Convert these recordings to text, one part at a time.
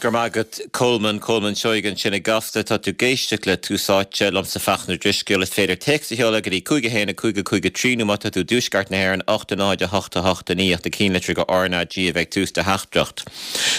Go raibh maith agat Colman, Colman Seoighe ansin i gCasla. Tá tú ag éisteacht le Tús Áite, liomsa Fachtna Ó Drisceoil. Is féidir téacs a sheoladh go dtí 5 1 5 5 3 nó má tá tú i dtuaisceart na hÉireann, 8 0 8 8 9 ach na cinnlitreacha RnaG a bheith ag tús do theachtaireacht.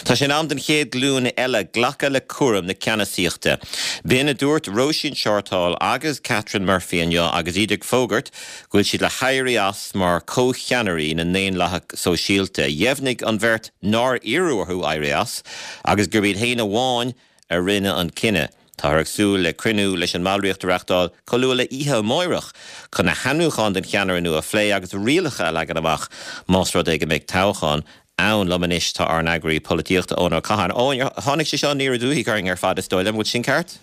Tá sé in am don chéad ghlúin eile glacadh le cúram na ceannasaíochta. B'in a dúirt Róisín Shortall agus Catherine Murphy inniu agus iad ag fógairt go bhfuil siad le héirí as mar chomhcheannairí na nDaonlathach Sóisialta. Dheimhnigh an bheirt nár iarradh orthu éirí as agus gurb iad féin amháin a rinne an cinneadh. Táthar ag súil le cruinniú leis an mballraíocht a reachtáil chomh luath le oíche amáireach chun na hainmniúcháin don cheannaire nua a phlé agus rialacha a leagan amach más rud é go mbeidh toghchán ann. Liom anois tá ár n-eagraí polaitíochta Eoin Ó Catháin. Eoin, tháinig sé seo aniar aduaidh orainn ar fad is dóigh liom, an bhfuil sin ceart?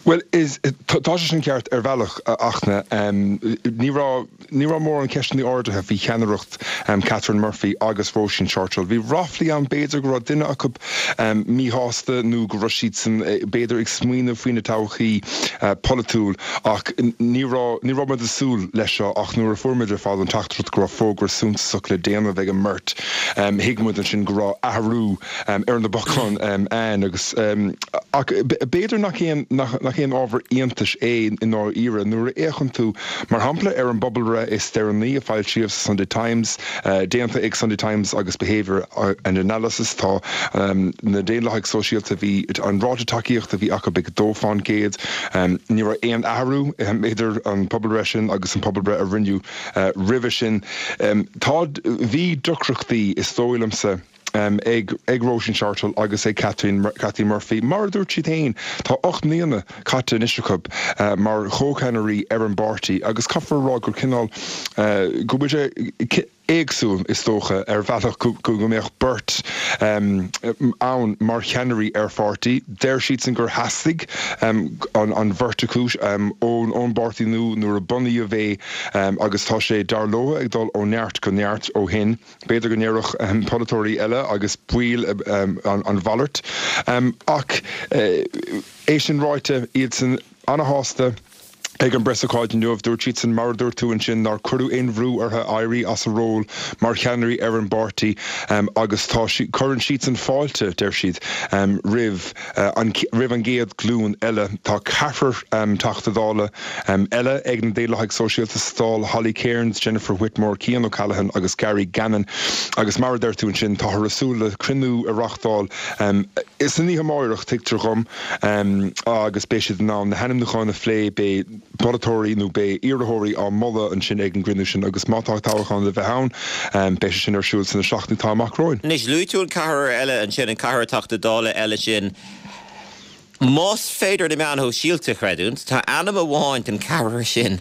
Bhuel, is, tá sé sin ceart ar bhealach, a Fhachtna. Ní raibh, ní raibh mórán ceisteanna ardaithe faoi cheannaireacht Catherine Murphy agus Róisín Shortall. Bhí ráflaí ann b'fhéidir go raibh duine acu míshásta nó go raibh siadsan b'fhéidir ag smaoineamh faoina todhchaí polaitiúil ach ní raibh, ní raibh muid ag súil leis seo ach nuair a fuair muid ar fad an teachtaireacht go raibh fógra suntasach le déanamh ag an mbeirt, thuig muid ansin go raibh athrú ar na bacáin ann agus ach b'fhéidir nach aon nach aon ábhar iontais é i ndáiríre nuair a fhéachann tú, mar shampla, ar an bpobalbhreith is deireanaí a foilsíodh sa Sunday Times, déanta ag Sunday Times agus Behaviour and Analysis, tá na Daonlathaigh Sóisialta, bhí an ráta tacaíochta a bhí acu ag 2%. Ní raibh aon athrú idir an pobalbhreith sin agus an pobalbhreith a rinneadh roimhe sin. Tá, bhí deacrachtaí, is dóigh liomsa. ag ag Róisín Shortall agus ag Kathleen Kathleen Murphy. Mar a dúirt siad féin, tá 8 mbliana caite anois acu mar chomhcheannairí ar an bpáirtí agus caithfear a rá gur cineál go bhfuil sé éagsúil, is dócha, ar bhealach go go mbeadh beirt ann mar cheannairí ar pháirtí. Deir siadsan gur theastaigh an an bheirt acu ón ón bpáirtí nua nuair a bunaíodh é agus tá sé, dar leo, ag dul ó neart go neart ó shin. B'fhéidir go ndéarfadh polaiteoirí eile agus baol an mhalairt. Ach é sin ráite, iadsan ana-shásta ag an bpreasócáid inniu. Dúirt siadsan, mar a dúirt tú ansin, nár cuireadh aon bhrú orthu éirí as a ról mar cheannairí ar an bpáirtí agus tá, cuireann siadsan fáilte, deir siad, roimh an roimh an gcéad ghlúin eile. Tá ceathrar Teachta Dála eile ag na Daonlathaigh Sóisialta sa Dáil, Holly Cairns, Jennifer Whitmore, Cian O'Callaghan agus Gary Gannon agus mar a deir tú ansin, táthar ag súil le cruinniú a reáchtáil san oíche amáireach, tuigtear dhom, agus beidh siad in ann na hainmniúcháin a phlé, beidh polaiteoirí nó beidh iarrthóirí á moladh ansin ag an gcruinniú sin agus má tá toghchán le bheith ann, beidh sé sin ar siúl sna seachtainí atá amach romhainn. Anois, luaigh tú an ceathrar eile ansin, an ceathrar Teachta Dála eile sin. Más féidir na meáin shóisialta a chreidiúint, tá ainm amháin den cheathrar sin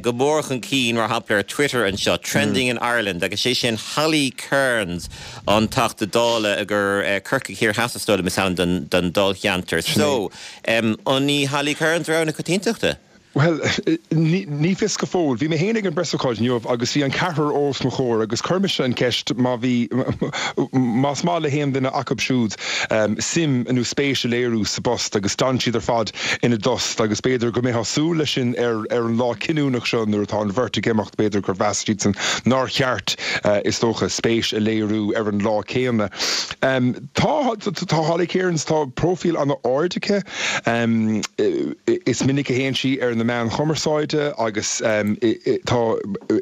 go mór chun cinn, mar shampla ar Twitter anseo, Trending in Ireland, agus sé sin Holly Cairns, an Teachta Dála gur Corcaigh Thiar Theas is dóigh liom is ainm don dáilcheantar. So, an í Holly Cairns rogha na coitiantachta? Bhuel, ní fios go fóill. Bhí mé féin ag an bpreasócáid inniu agus bhí an ceathrar os mo chomhair agus chuir mise an cheist má bhí, más maith le haon duine acu siúd suim nó spéis a léiriú sa bpost agus d'fhan siad ar fad ina dtost agus b'fhéidir go mbeifeá ag súil leis sin ar ar an lá cinniúnach seo nuair atá an bheirt ag imeacht, b'fhéidir gur mheas siadsan nár cheart, is dócha, spéis a léiriú ar an lá céanna. Tá, tá Holly Cairns, tá próifíl an-ard aici. Is minic a théann sí ar na meáin chumarsáide agus tá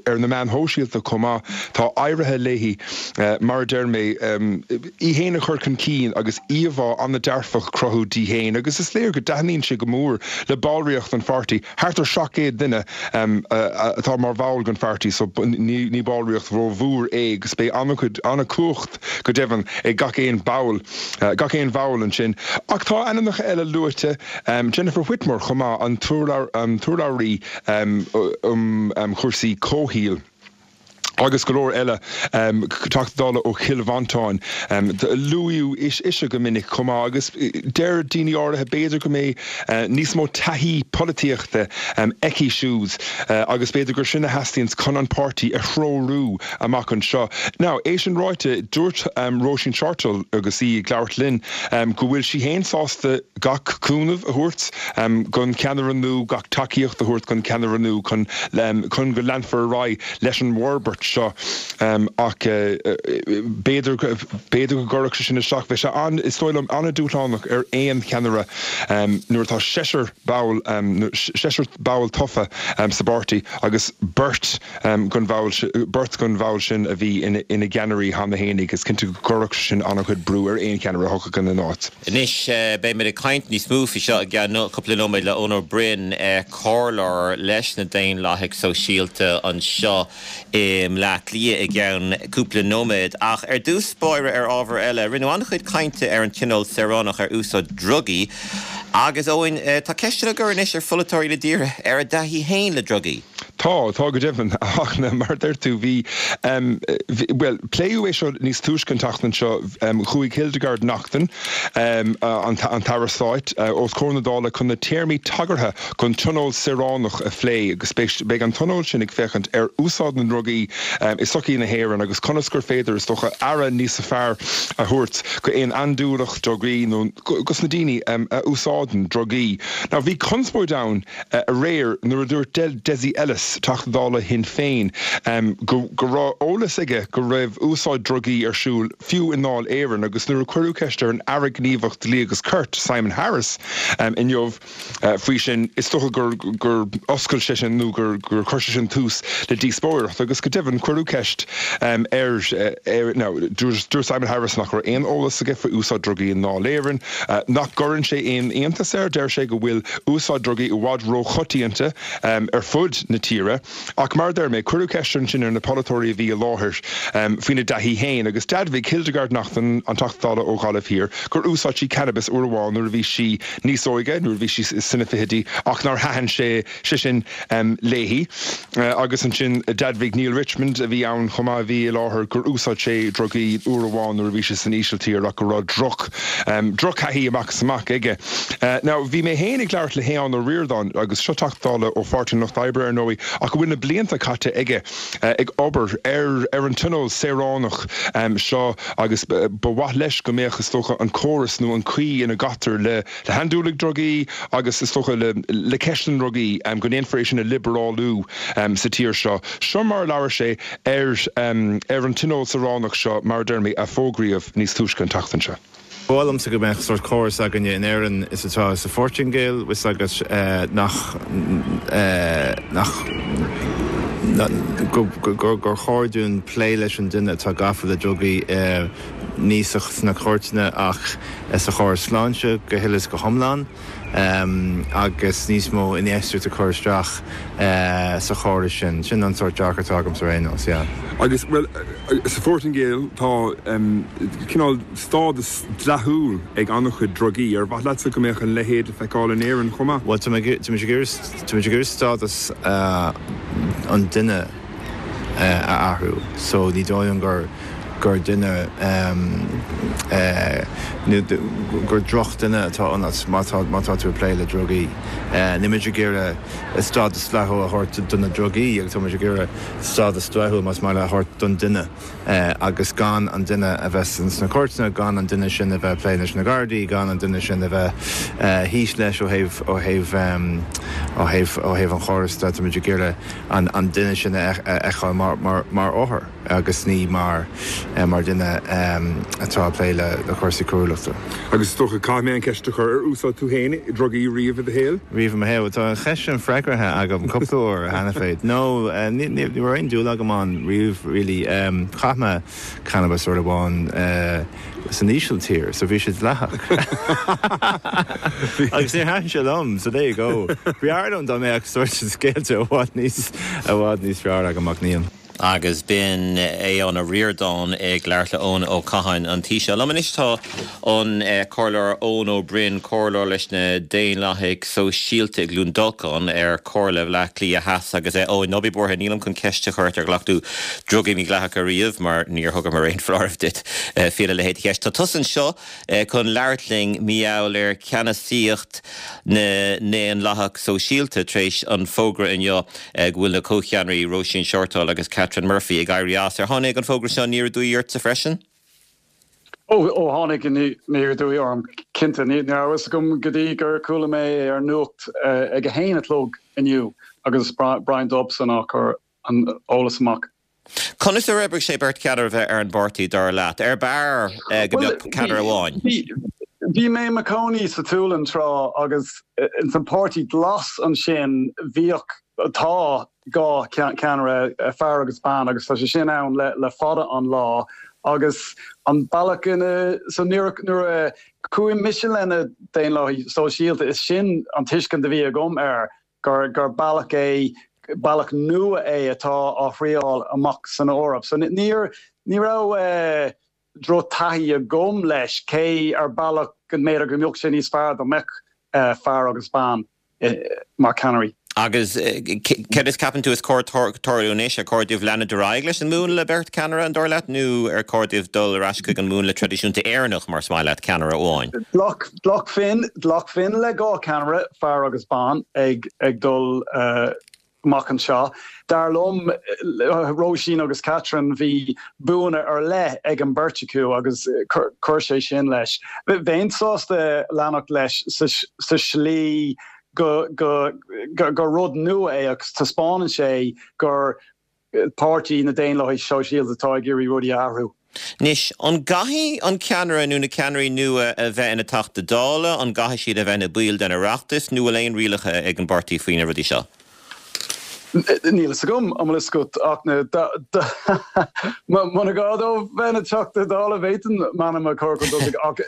ar na meáin shóisialta chomh maith. Tá éirithe léi, mar a deir mé, í féin a chur chun cinn agus íomhá an-dearfach a chruthú di féin agus is léir go dtaitníonn sé go mór le ballraíocht an pháirtí. Thart ar 700 duine atá mar bhall den pháirtí so ní ballraíocht rómhór é agus beidh an-chuid, an-chumhacht go deimhin ag gach aon ball, gach aon bhall ansin. Ach tá ainmneacha eile luaite, Jennifer Whitmore chomh maith, an t-urlabhraí um chúrsaí comhshaoil agus go leor eile, Teachta Dála ó Chill Mhantáin. Luaíodh ise go minic chomh maith agus deir daoine áirithe b'fhéidir go mbeidh níos mó taithí polaitíochta aici siúd agus b'fhéidir gur sin a theastaíonns chun an páirtí a threorú amach anseo. Now, é sin ráite, dúirt Róisín Shortall agus í ag labhairt linn go bhfuil sí féin sásta gach cúnamh a thabhairt don cheannaire nua, gach tacaíocht a thabhairt don cheannaire nua chun chun go leanfar ar aghaidh leis an bhforbairt. seo ach b'fhéidir, b'fhéidir go gcuirfeadh sé sin isteach. Bheadh sé an, is dóigh liom, an-dúshlánach ar aon cheannaire nuair atá seisear ball, seisear ball tofa sa bpáirtí agus beirt den bhall, beirt den bhall sin a bhí ina gceannairí cheana fhéinig. Is cinnte go gcuirfeadh sé sin an-chuid brú ar aon cheannaire a thiocfadh ina n-áit. Anois, beidh muid ag caint níos mó faoi seo i gceann cúpla nóiméad le Eoin Ó Broin, comhairleoir leis na Daonlathaigh Sóisialta anseo i mBleá Cliath i gceann cúpla nóiméad. Ach ar dtús báire ar ábhar eile, rinneadh an-chuid cainte ar an Tionól Saoránach ar úsáid drugaí agus, Eoin, tá ceisteanna á gcur anois ar pholaiteoirí na tíre ar a dtaithí féin le drugaí. Tá, tá go deimhin. Ach mar a deir tú, bhí, bhuel, pléadh é seo níos túisce an tseachtain seo. Chuaigh Hildegarde Naughton, an tAire Stáit, os comhair na Dála chun na téarmaí tagartha don Tionól Saoránach a phlé agus beidh an Tionól sin ag féachaint ar úsáid na ndrugaí i sochaí na hÉireann agus conas gur féidir, is dócha, aire níos fearr a thabhairt go aon andúileach drugaí nó dos na daoine a úsáideann drugaí. Now bhí conspóid ann aréir nuair a dúirt Dessie Ellis, Teachta Dála Shinn Féin, go raibh eolas aige go raibh úsáid drugaí ar siúl fiú i nDáil Éireann agus nuair a cuireadh ceist ar an Aire Gníomhach Dlí agus Cirt, Simon Harris, inniu faoi sin, is dócha gur gur oscail sé sin nó gur chuir sé sin tús le díospóireacht agus go deimhin cuireadh ceist air now dúirt Simon Harris nach raibh aon eolas aige faoi úsáid drugaí i nDáil Éireann, nach gcuireann sé aon iontas air, deir sé go bhfuil úsáid drugaí i bhfad róchoitianta ar fud na tíre. Ach mar a deir mé, cuireadh ceist ansin ar na polaiteoirí a bhí i láthair faoina dtaithí féin agus d'admhaigh Hildegarde Naughton, an Teachta Dála ó Ghaillimh Thiar, gur úsáid sí cannabis uair amháin nuair a bhí sí níos óige, nuair a bhí sí sna fichidí, ach nár thaitin sé sé sin léi. Agus ansin d'admhaigh Neale Richmond, a bhí ann chomh maith, a bhí i láthair, gur úsáid sé drugaí uair amháin nuair a bhí sé san Ísiltír ach go raibh droch, drochthaithí amach is amach aige. Now, bhí mé féin ag labhairt le hAodhán Ó Ríordáin, agus seo Teachta Dála ó Pháirtí an Lucht Oibre ar ndóigh, ach go bhfuil na blianta caite aige ag obair ar ar an Tionól Saoránach seo agus ba mhaith leis go mbeadh, is dócha, an córas nó an chaoi ina gcaitear le le handúiligh drugaí agus is dócha le ceist na ndrugaí, go ndéanfar é sin a liobrálú sa tír seo. Seo mar a labhair sé ar ar an Tionól Saoránach seo, mar a deir mé, a fógraíodh níos túisce an tseachtain seo. Ba mhaith liomsa go mbeadh sórt córas againne in Éirinn is atá sa Phortaingéil, 'fhios agat, nach, nach, gur chóir dúinn plé leis an duine atá gafa le drugaí ní sna cúirteanna ach sa chóras sláinte go huile is go hiomlán agus níos mó infheistíocht a chur isteach sa chóras sin. Sin an sórt dearcadh atá agamsa ar aon nós, yeah. Agus, bhuel, sa Phortaingéil tá cineál stádas dleathúil ag an-chuid drugaí. Ar mhaith leatsa go mbeadh a leithéid le feiceáil in Éirinn chomh maith? Bhuel, tá mé ag iarraidh stádas an duine a athrú so ní dóigh liom gur gur duine nó gur drochdhuine atá ionat má tá má tá tú ag plé le drugaí. Níl muid ag iarraidh stádas dleathúil a thabhairt do na drugaí agus tá muid ag iarraidh stádas dleathúil más maith leat a thabhairt don duine agus gan an duine a bheith sna cúirteanna, gan an duine sin a bheith ag plé leis na Gardaí, gan an duine sin a bheith thíos leis ó thaobh ó thaobh ó thaobh ó thaobh an chórais de. Tá muid ag iarraidh an duine sin a fheiceáil mar othar agus ní mar dhuine atá ag plé le cúrsaí coiriúlachta. Agus is dócha, caithfidh mé an cheist a chur, ar úsáid tú féin drugaí riamh i do shaol? Riamh i mo shaol? Tá an cheist sin freagraithe agam cúpla uair cheana féin. No, ní raibh aon dúil agam ann riamh really. Chaith mé cannabas uair amháin. san Ísiltír, so bhí sé dleathach. Agus níor thaitin sé liom, so there you go. B'fhearr liom dá mbeadh sórt scéalta i bhfad níos, i bhfad níos fearr agam ach níl. Agus b'in Aodhán Ó Ríordáin ag labhairt le Eoin Ó Catháin, an Taoiseach. Liom anois tá an Comhairleoir Eoin Ó Broin, Comhairleoir leis na Daonlathaigh Sóisialta i gCluain Dolcáin ar Chomhairle Bhaile Átha Cliath Theas. Agus Eoin, ná bí buartha, nílim chun ceist a chur ort ar ghlac tú drugaí mídhleathacha riamh mar níor thugamar aon foláireamh duit faoina leithéid de cheist. Tá tusa anseo chun labhairt linn mar gheall ar cheannasaíocht na nDaonlathach Sóisialta tar éis an fógra inniu go bhfuil na comhcheannairí Róisín Shortall agus Catherine Murphy ag éirí as. Ar tháinig an fógra seo aniar aduaidh ortsa freisin? Ó, ó tháinig aniar aduaidh orm, cinnte. Ní raibh a fhios agam go dtí gur chuala mé é ar an nuacht ag a haon a chlog inniu agus Brian Dobson á chur an eolas amach. Conas ar oibrigh sé beirt cheannaire a bheith ar an bpáirtí, dar leat? Ar b'fhearr go mbeadh ceannaire amháin? Bhí mé i mo chónaí sa tSualainn tráth agus ins an Páirtí Glas ansin bhíodh, tá, 2 cheannaire, fear agus bean, agus tá sé sin ann le fada an lá agus an bealach ina, so nuair a chuaigh mise le na Daonlathaigh Sóisialta is sin an tuiscint a bhí agam air gur gur bealach é, bealach nua é atá á thriáil amach san Eoraip. So níor, ní raibh drochtaithí agam leis, cé ar bealach go mb'fhéidir go mbeadh sé níos fearr dá mbeadh fear agus bean mar cheannairí. Agus céard is ceapann tú is cóir tarlú anois? Ar chóir dóibh leanúint ar aghaidh leis an múnla beirt cheannaire, an dóigh leat, nó ar chóir dóibh dul ar ais chuig an múnla traidisiúnta Éireannach, mar is maith leat, ceannaire amháin? Ghlacfainn, ghlacfainn le 2 cheannaire, fear agus bean, ag dul amach anseo. Dar liom, Róisín agus Catherine, bhí buanna ar leith ag an beirt acu agus chuir sé sin leis. Bheinn sásta leanacht leis sa slí go gur rud nua é agus taispeánann sé gur páirtí na Daonlathaithe Sóisialta atá ag iarraidh rudaí a athrú. Anois, an gcaithfidh an ceannaire nó na ceannairí nua a bheith ina Teachta Dála, an gcaithfidh siad a bheith ina baill den Oireachtas, nó bhfuil aon rialacha ag an bpáirtí faoi na rudaí seo? Níl fhios agam, an bhfuil fhios agat ach na, muna gá dóibh bheith ina Teachta Dála bhféadfainn m'ainm a chur chun tosaigh ach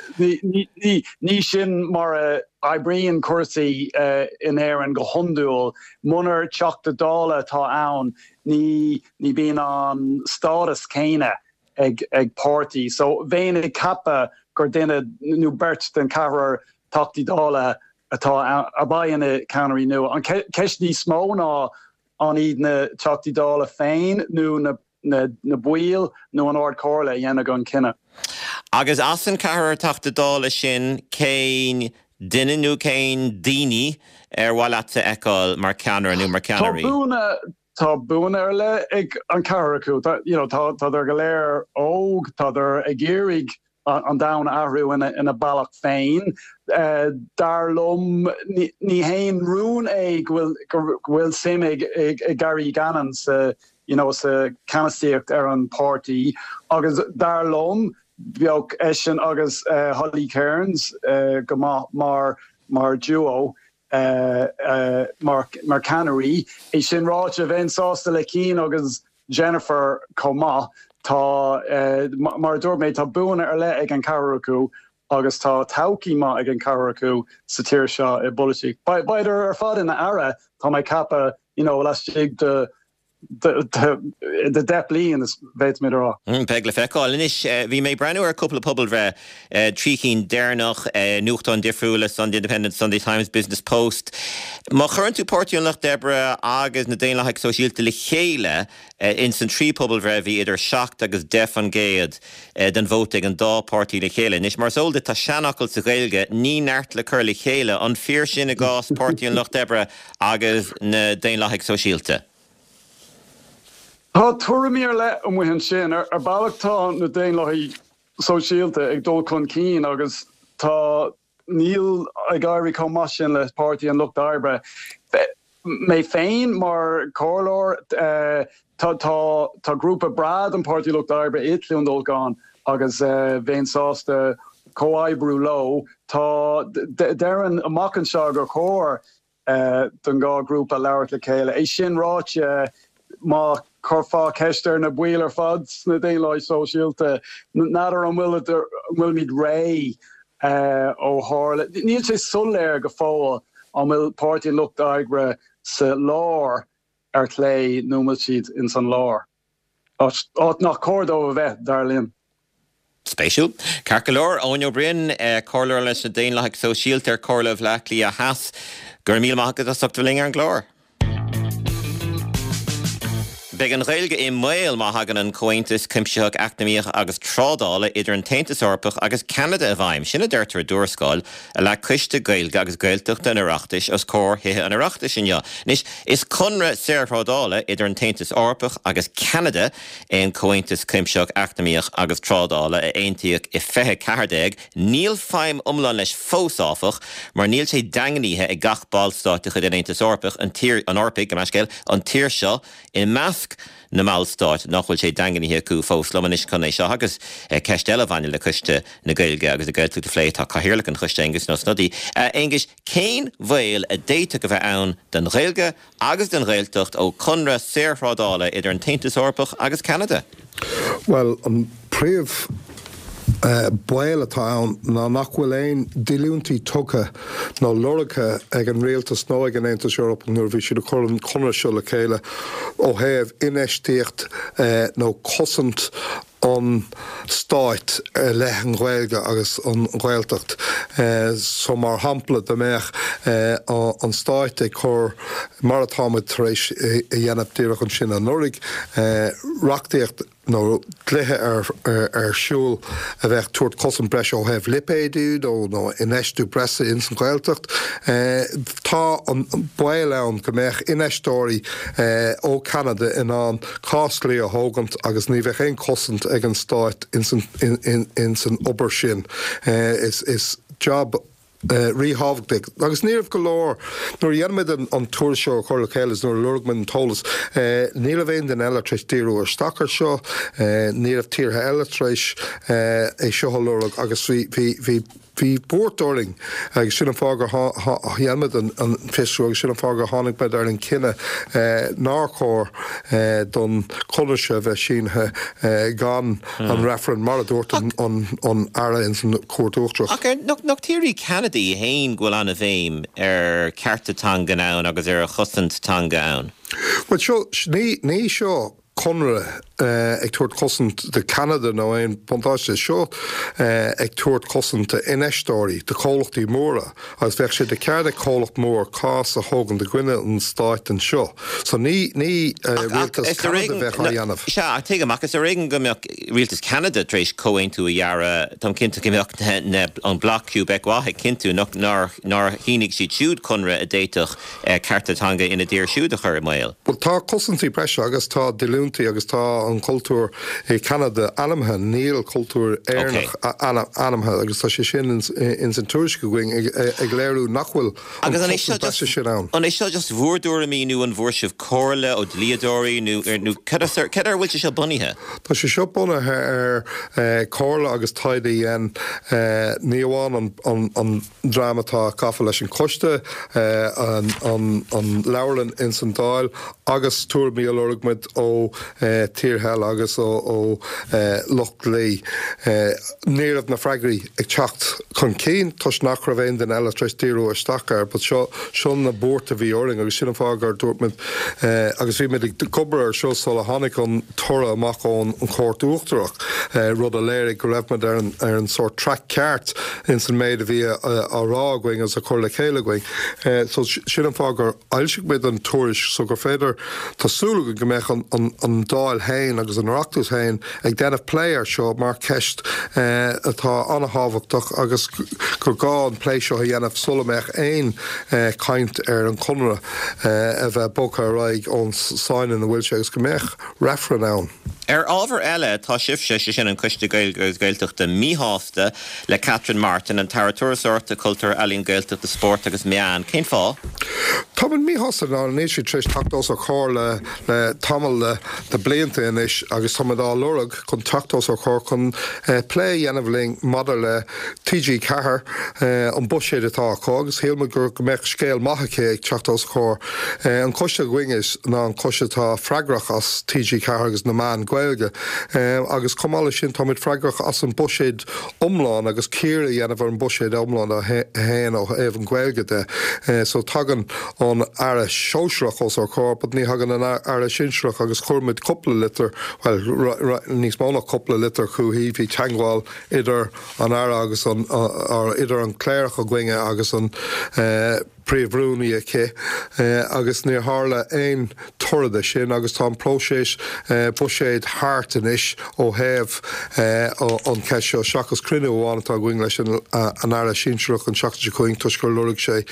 ní sin mar a oibríonn cúrsaí in Éirinn go hiondúil. Munar Teachta Dála atá ann ní ní bíonn an stádas céanna ag ag páirtí. So bheinn ag ceapadh gur duine nó beirt den cheathrar Teachtaí Dála atá ann a bheidh ina ceannairí nua. An cheist níos mó ná an iad na Teachtaí Dála féin nó na na na baill nó an Ard Chomhairle a dhéanfaidh an cinneadh. Agus as an ceathrar Teachta Dála sin cén duine nó cén daoine ar mhaith leatsa a fheiceáil mar cheannaire nó mar ceannairí? Tá buanna, tá buanna ar leith ag an ceathrar acu. Tá, you know, tá, tádar go léir óg, tádar ag iarraidh an domhan a athrú ina, ina bealach féin. Dar liom, ní, ní haon rún é go bhfuil, go bhfuil suim ag, ag, ag Gary Gannon sa, you know, sa ceannasaíocht ar an páirtí agus dar liom, Bheadh eisean agus Holly Cairns go maith mar mar duo, mar mar ceannairí. É sin ráite, bheinn sásta le Cian agus Jennifer chomh maith. Tá, mar a dúirt mé, tá buanna ar leith ag an ceathrar acu agus tá todhchaí maith ag an ceathrar acu sa tír seo i bpolaitíocht. Beidh ar fad ina aire, tá mé ag ceapadh, you know, laistigh de de 10 bliain, is féadfaimid a rá. Beidh le feiceáil. Anois, bhí mé ag breathnú ar cúpla pobalbhreith, 3 chinn deireanach, nuachtáin difriúla, Sunday Independent, Sunday Times, Business Post. Má chuireann tú Páirtí an Lucht Oibre agus na Daonlathaigh Sóisialta le chéile, ins an trí pobalbhreith bhí idir 7 agus 10% den vóta ag an dá páirtí le chéile. Anois, mar is eol duit, tá seanfhocal sa Ghaeilge, ní neart le cur le chéile. An fíor sin i gcás Páirtí an Lucht Oibre agus na Daonlathaigh Sóisialta. Tá tuairimí ar leith amuigh ansin. Ar bealach tá na Daonlathaigh Sóisialta ag dul chun cinn agus tá, níl ag éirí chomh maith sin le Páirtí an Lucht Oibre. Mé féin mar chomhairleoir, tá, tá, tá grúpa breá den Páirtí Lucht Oibre i Cluain Dolcáin agus bheinn sásta comhoibriú leo. Tá, déarfainn amach anseo gur chóir don dhá ghrúpa labhairt le chéile. É sin ráite, má chuirfeá ceist ar na baill ar fad sna Daonlathaigh Sóisialta, n'fheadar an bhfuil an bhfuilimid réidh ó tharla, níl sé soiléir go fóill an bhfuil Páirtí an Lucht Oibre sa lár ar chlé nó an bhfuil siad ins an lár. Áit nach cóir dóibh a bheith, dar linn. Spéisiúil. Ceart go leor, Eoin Ó Broin, Comhairleoir leis na Daonlathaigh Sóisialta ar Chomhairle Bhaile Átha Cliath Theas. Go raibh míle maith agat as ucht a bheith linn ar an gclár. Beidh an Ghaeilge i mbaol má thagann an Comhaontas Cuimsitheach Eacnamaíoch agus Trádála idir an tAontas Eorpach agus Ceanada i bhfeidhm. Sin a deirtear i dtuarascáil a leag Coiste Gaeilge agus Gaeltachta an Oireachtais os comhair Thithe an Oireachtais inniu. Anois, is conradh saorthrádála idir an tAontas Eorpach agus Ceanada é an Comhaontas Cuimsitheach Eacnamaíoch agus Trádála a aontaíodh i 2014. Níl feidhm iomlán leis fós, áfach, mar níl sé daingnithe ag gach ballstát de chuid an Aontais Eorpaigh, an tír, an Eorpaigh, gabh mo leithscéal, an tír seo i measc. measc na mballstát nach bhfuil sé daingnithe acu fós. Liom anois chun é seo agus ceist eile a bhaineann le Coiste na Gaeilge agus na Gaeltachta a phlé tá Cathaoirleach an Choiste, Aengus Ó Snodaigh. A Aonghuis, cén bhaol a d'fhéadfadh a bheith ann don Ghaeilge agus don Ghaeltacht ó chonradh saorthrádála idir an tAontas Eorpach agus Ceanada? Bhuel, an príomh baol atá ann ná nach bhfuil aon díolúintí tugtha nó lorgtha ag an rialtas nó ag an Aontas Eorpach nuair a bhí siad ag cur an conradh seo le chéile ó thaobh infheistíocht nó cosaint an stáit i leith an Ghaeilge agus an Ghaeltacht. So mar shampla dá mbeadh an stáit ag cur, mar atá muid tar éis a dhéanamh díreach ansin anuraidh, reachtaíocht nó dlíthe ar siúl a bheadh tabhairt cosaint breise ó thaobh lipéadú nó infheistiú breise ins an Ghaeltacht, tá an baol ann go mbeadh infheisteoirí ó Cheanada in ann cás dlí a thógaint agus ní bheadh aon chosaint ag an stáit ins an obair sin. Is jab ríthábhachtach agus ní raibh go leor, nuair a dhein muid an tuairisc seo a chur le chéile is nuair a lorg muid an t-eolas, ní raibh aon duine eile tar éis díriú isteach ar seo, ní raibh tíortha eile tar éis é seo a lorg agus bhí, bhí, Bhí buairt orainn agus sin an fáth gur dhein muid an fiosrú agus sin an fáth gur tháinig muid ar an cinneadh nár chóir don chonradh seo a bheith sínithe gan an reifreann, mar a dúirt an Aire ins an Chúirt Uachtarach. Ach nach tír í Ceanada í féin go bhfuil an-bhéim ar chearta teangan ann agus ar chosaint teanga ann? Bhuel seo, ní seo conradh ag tabhairt cosaint do Cheanada nó aon buntáiste. Seo ag tabhairt cosaint d'infheisteoirí, do chomhlachtaí móra agus bheadh sé de cheart ag comhlacht mór cás a thógaint i gcoinne an stáit anseo. So ní ní rialtas Cheanada a bheadh á dhéanamh. Sea, ach tuigim, ach is ar éigean go mbeadh rialtas Cheanada tar éis comhaontú a dhearadh, táim cinnte go mbeadh an Bloc Québécois ag cinntiú nár nár shínigh siad siúd conradh a d'fhéadfadh cearta teanga ina dtír siúd a chur i mbaol. Bhuel, tá cosaintí breise agus tá díolúintí agus tá an cultúr i Ceanada ainmnithe, níl cultúr Éireannach ainmnithe agus tá sé sin ins an tuairisc againn ag léiriú nach bhfuil an chosaint breise sin ann. An é seo just bhur dtuairimí nó an bhfuair sibh comhairle ó dhlíodóirí nó cad ar a bhfuil sé seo bunaithe? Tá sé seo bunaithe ar chomhairle agus taighde a dhein ní amháin an dream atá gafa leis an choiste, an leabharlann ins an Dáil agus tuairimí a lorg muid ó tíortha eile agus ó lucht dlí. Ní raibh na freagraí ag teacht chun cinn toisc nach raibh aon duine eile tar éis díriú isteach air but seo, seo na buairt a bhí orainn agus sin an fáth gur dúirt muid agus bhí muid ag obair ar seo sula tháinig an toradh amach ón Chúirt Uachtarach, rud a léirigh go raibh muid ar an ar an sórt traic ceart ins an méid a bhí á rá againn agus á chur le chéile againn. So sin an fáth gur fhoilsigh muid an tuairisc so gur féidir, tá súil againn go mbeadh an an Dáil féin agus an Oireachtas féin ag déanamh plé ar seo mar cheist atá an-thábhachtach agus gur gá an plé seo a dhéanamh sula mbeadh aon chaint ar an chonradh a bheith bogtha ar aghaidh ón sáinn ina bhfuil sé agus go mbeadh reifreann ann. Ar ábhar eile, tá sibhse, sé sin an Coiste Gaeilge agus Gaeltachta, míshásta le Catherine Martin, an tAire Turasóireachta, Cultúir, Ealaíon, Gaeltachta, Spóirt agus Meán. Cén fáth? Táimid míshásta ná níl sí tar éis teacht os ár comhair le le tamall de blianta anois agus táimid á lorg chun teacht os ár comhair chun plé a dhéanamh linn maidir le TG4, an buiséad atá acu agus shíl muid go mbeadh scéal maith aici ag teacht os ár comhair. An coiste againn is ná an coiste atá freagrach as TG4 agus na meáin Gaeilge agus chomh maith leis sin táimid freagrach as an buiséad iomlán agus cíoradh a dhéanamh ar an buiséad iomlán a haon ó thaobh an Ghaeilge de. So tagann an Aire Sóisearach os ár comhair but ní thagann an Aire Sinsearach agus chuir muid cúpla litir, bhuel níos mó ná cúpla litir chuici, bhí teagmháil idir an Aire agus an, or idir an cléireach againne agus an Príomh-Rúnaí aici agus níor tharla aon toradh de sin agus tá an próiseas buiséid thart anois ó thaobh an cheist seo seachas cruinniú amháin atá againn leis an Aire Sinsearach an tseachtain seo chugainn toisc gur lorg sé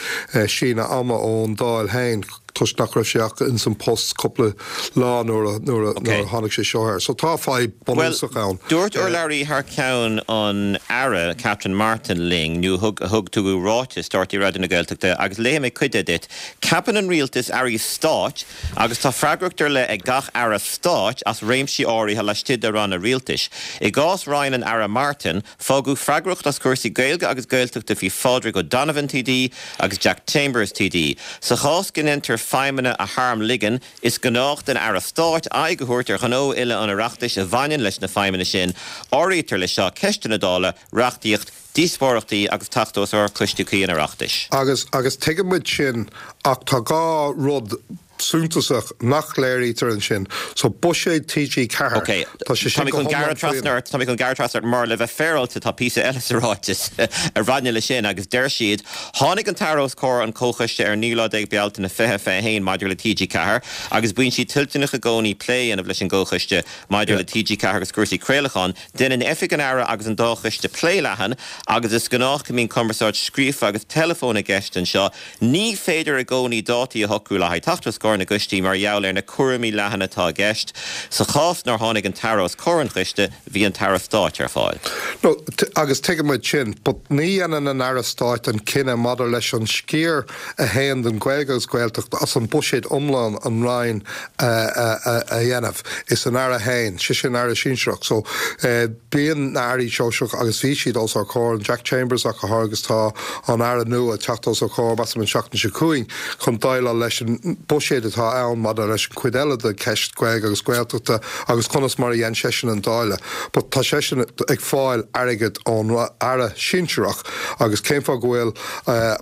síneadh ama ón Dáil féin. toisc nach raibh sé ach ins an post cúpla lá nuair a nuair a nuair a tháinig sé seo air. So tá fadhb bunúsach ann. Dúirt urlabhraí thar ceann an Aire, Catherine Martin linn, nó thug thug tugadh ráiteas do RTÉ Raidió na Gaeltachta agus léifidh mé cuid de duit, Ceapann an Rialtas Airí Stáit agus tá freagracht ar leith ag gach Aire Stáit as réimsí áirithe laistigh de ranna rialtais. I gcás Roinn an Aire Martin, Fágadh freagracht as cúrsaí Gaeilge agus Gaeltachta faoi Phádraig O'Donovan TD agus Jack Chambers TD. Sa chás go ndéantar feidhmeanna a tharmligean, is gnách don Aire Stáit aghaidh a thabhairt ar ghnó uile an Oireachtais a bhaineann leis na feidhmeanna sin. Áirítear leis seo ceisteanna Dála, reachtaíocht, díospóireachtaí agus teacht os ard coistí cuí an Oireachtais. Agus, agus tuigeann muid sin ach tá 2 rud suntasach nach léirítear ansin. So, buiséad TG4, Ok, tá sé sin go hiomlán faoin. Tá mé chun gearradh trasna ort mar le bheith féaráilte tá píosa eile sa ráiteas a bhaineann leis sin agus deir siad, Tháinig an tAire os comhair an Chomhchoiste ar an 19 lá Bealtaine 2021 maidir le TG4 agus bíonn sí toilteanach i gcónaí plé a dhéanamh leis an gComhchoiste maidir le TG4 agus cúrsaí craolacháin. Déanann Oifig an Aire agus an dá choiste plé leathan agus is gnách go mbíonn cumarsáid scríofa agus teileafóin i gceist anseo. Ní féidir i gcónaí dátaí a shocrú le haghaidh teacht os comhair na gcoistí mar gheall ar na cúraimí leathana atá i gceist. Sa chás nár tháinig an tAire os comhair an choiste, bhí an tAire Stáit ar fáil. No, agus tuigeann muid sin, but ní dhéanann an Aire Stáit an cinneadh maidir leis an sciar a théann don Ghaeilge agus Gaeltacht as an buiséad iomlán an Roinn a dhéanamh. Is an Aire féin, sé sin Aire Sinsearach. So, bíonn na Airí Sóisearach agus bhí siad os ár comhair, an Jack Chambers ach go háirithe agus tá an Aire nua ag teacht os ár comhair, measaim an tseachtain seo chugainn, chun déileáil leis an buiséad atá ann maidir leis an chuid eile de cheist Gaeilge agus Gaeltachta agus conas mar a dhein seisean an dáileadh. But tá seisean ag fáil airgead ón Aire Sinsearach agus cén fáth go bhfuil,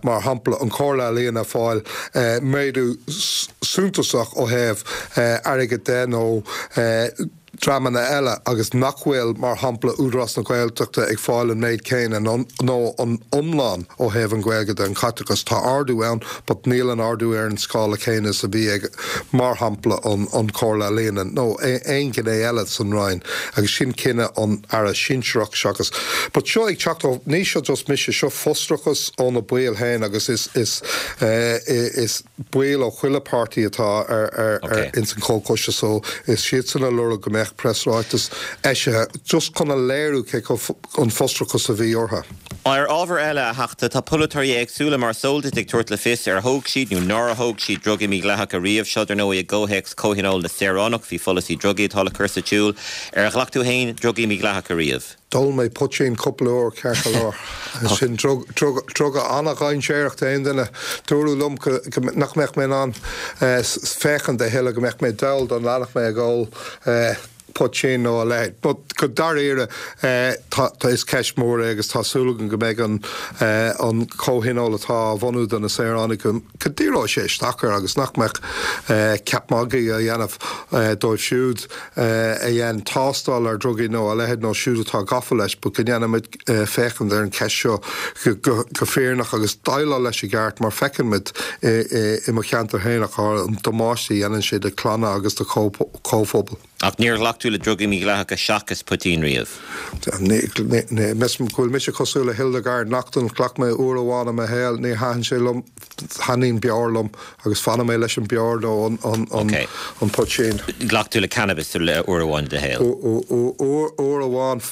mar shampla, an Chomhairle Ealaíon ag fáil méadú suntasach ó thaobh airgid de nó dreamanna eile agus nach bhfuil, mar shampla, Údarás na Gaeltachta ag fáil an méid céanna nó nó an iomlán ó thaobh an Ghaeilge de, an caiteachas. Tá ardú ann but níl an ardú ar an scála céanna is a bhí ag, mar shampla, an an Chomhairle Ealaíon nó aon ghné eile san Roinn agus sin cinneadh an Aire sinsearach seachas. But seo ag teacht ó, ní seo just mise, seo frustrachas ó na baill féin agus is is is baill ó chuile páirtí atá ar ar ar ins an chomhchoiste so is siadsan a lorg go mbeadh preasráiteas eisithe just chun a léiriú cé chomh an frustrachas a bhí orthu. Ar ábhar eile, a Theachta, tá polaiteoirí éagsúla, mar is eol duit, ag tabhairt le fios ar thóg siad nó nár thóg siad drugaí mídhleathacha riamh. Seo, dar ndóigh, i gcomhthéacs Comhthionól na Saoránach faoi pholasaí drugaí atá le cur sa tsiúl. Ar ghlac tú féin drugaí mídhleathacha riamh? D'ól mé poitín cúpla uair, ceart go leor. Sin druga an-dhainséarach d'aon duine. Dúradh liom nach mbeadh mé in ann féachaint a thuilleadh, go mbeadh mé dall dá leanfadh mé ag ól poitín nó a leithéid. But go dáiríre, tá, is ceist mhór é agus tá súil agam go mbeidh an comhthionól atá á bhunú do na saoránaigh, go ndíreoidh sé isteach air agus nach mbeadh ceap magaidh á dhéanamh dóibh siúd a dhein tástáil ar dhrugaí nó a leithéid nó siúd atá gafa leis but go ndéanfaimid féachaint ar an cheist seo go fírinneach agus déileáil leis i gceart mar feiceann muid i mo cheantar féin ach an damáiste a dhéanann sé do chlanna agus do chomhphobail. Ach níor ghlac tú le drugaí mídhleathacha seachas poitín riamh? Measaim go bhfuil mise cosúil le Hildegarde Naughton, ghlac mé uair amháin i mo shaol, níor thaitin sé liom, thaitníonn beoir liom agus fanfaidh mé leis an beoir nó an poitín. Ghlac tú le cannabis uair amháin i do shaol? Uair amháin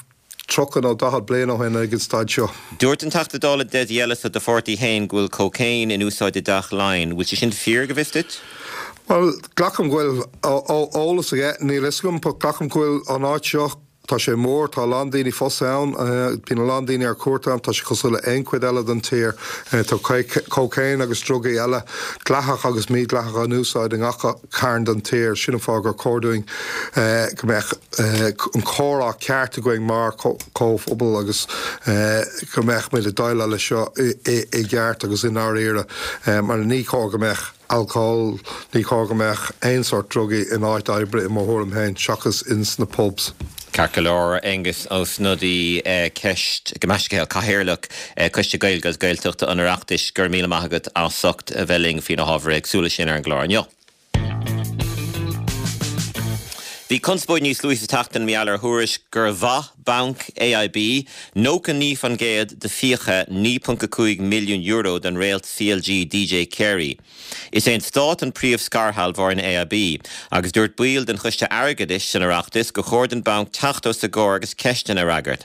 30 nó 40 bliain ó shin ag an staid seo. Dúirt an Teachta Dála Dessie Ellis ó do pháirtí féin go bhfuil cócaon in úsáid i dTeach Laighean. Bhfuil sé sin fíor, go bhfios duit? Bhuel, glacaim go bhfuil eolas aige, níl fhios agam, but glacaim go bhfuil an áit seo, tá sé mór, tá a lán daoine fós ann, bíonn a lán daoine ar cuairt ann, tá sé cosúil le aon chuid eile den tír. Tá cócaon agus drugaí eile, dleathach agus mídhleathach, in úsáid i ngach cearn den tír. Sin an fáth gur chóir dúinn go mbeadh an comhrá ceart againn mar chomhphobal agus go mbeadh muid ag déileáil leis seo i gceart agus i ndáiríre mar ní chóir go mbeadh alcól, ní chóir go mbeadh aon sórt drugaí in áit oibre i mo thuairim féin seachas ins na pubs. Ceart go leor, Aengus Ó Snodaigh, ceist, gabh mo leithscéal, Cathaoirleach Coiste Gaeilge agus Gaeltachta an Oireachtais, go raibh míle maith agat as ucht a bheith linn faoi na hábhair éagsúla sin ar an gclár inniu. Bhí conspóid níos luaithe sa tseachtain mar gheall ar thuairisc gur mhaith banc AIB 99% de fiacha €9.5 milliún den réalt CLG DJ Carey. Is é an Stát an príomh-scairshealbhóir in AIB agus dúirt baill den Choiste Airgeadais san Oireachtas gur chóir don bhanc teacht os a gcomhair agus ceisteanna a fhreagairt.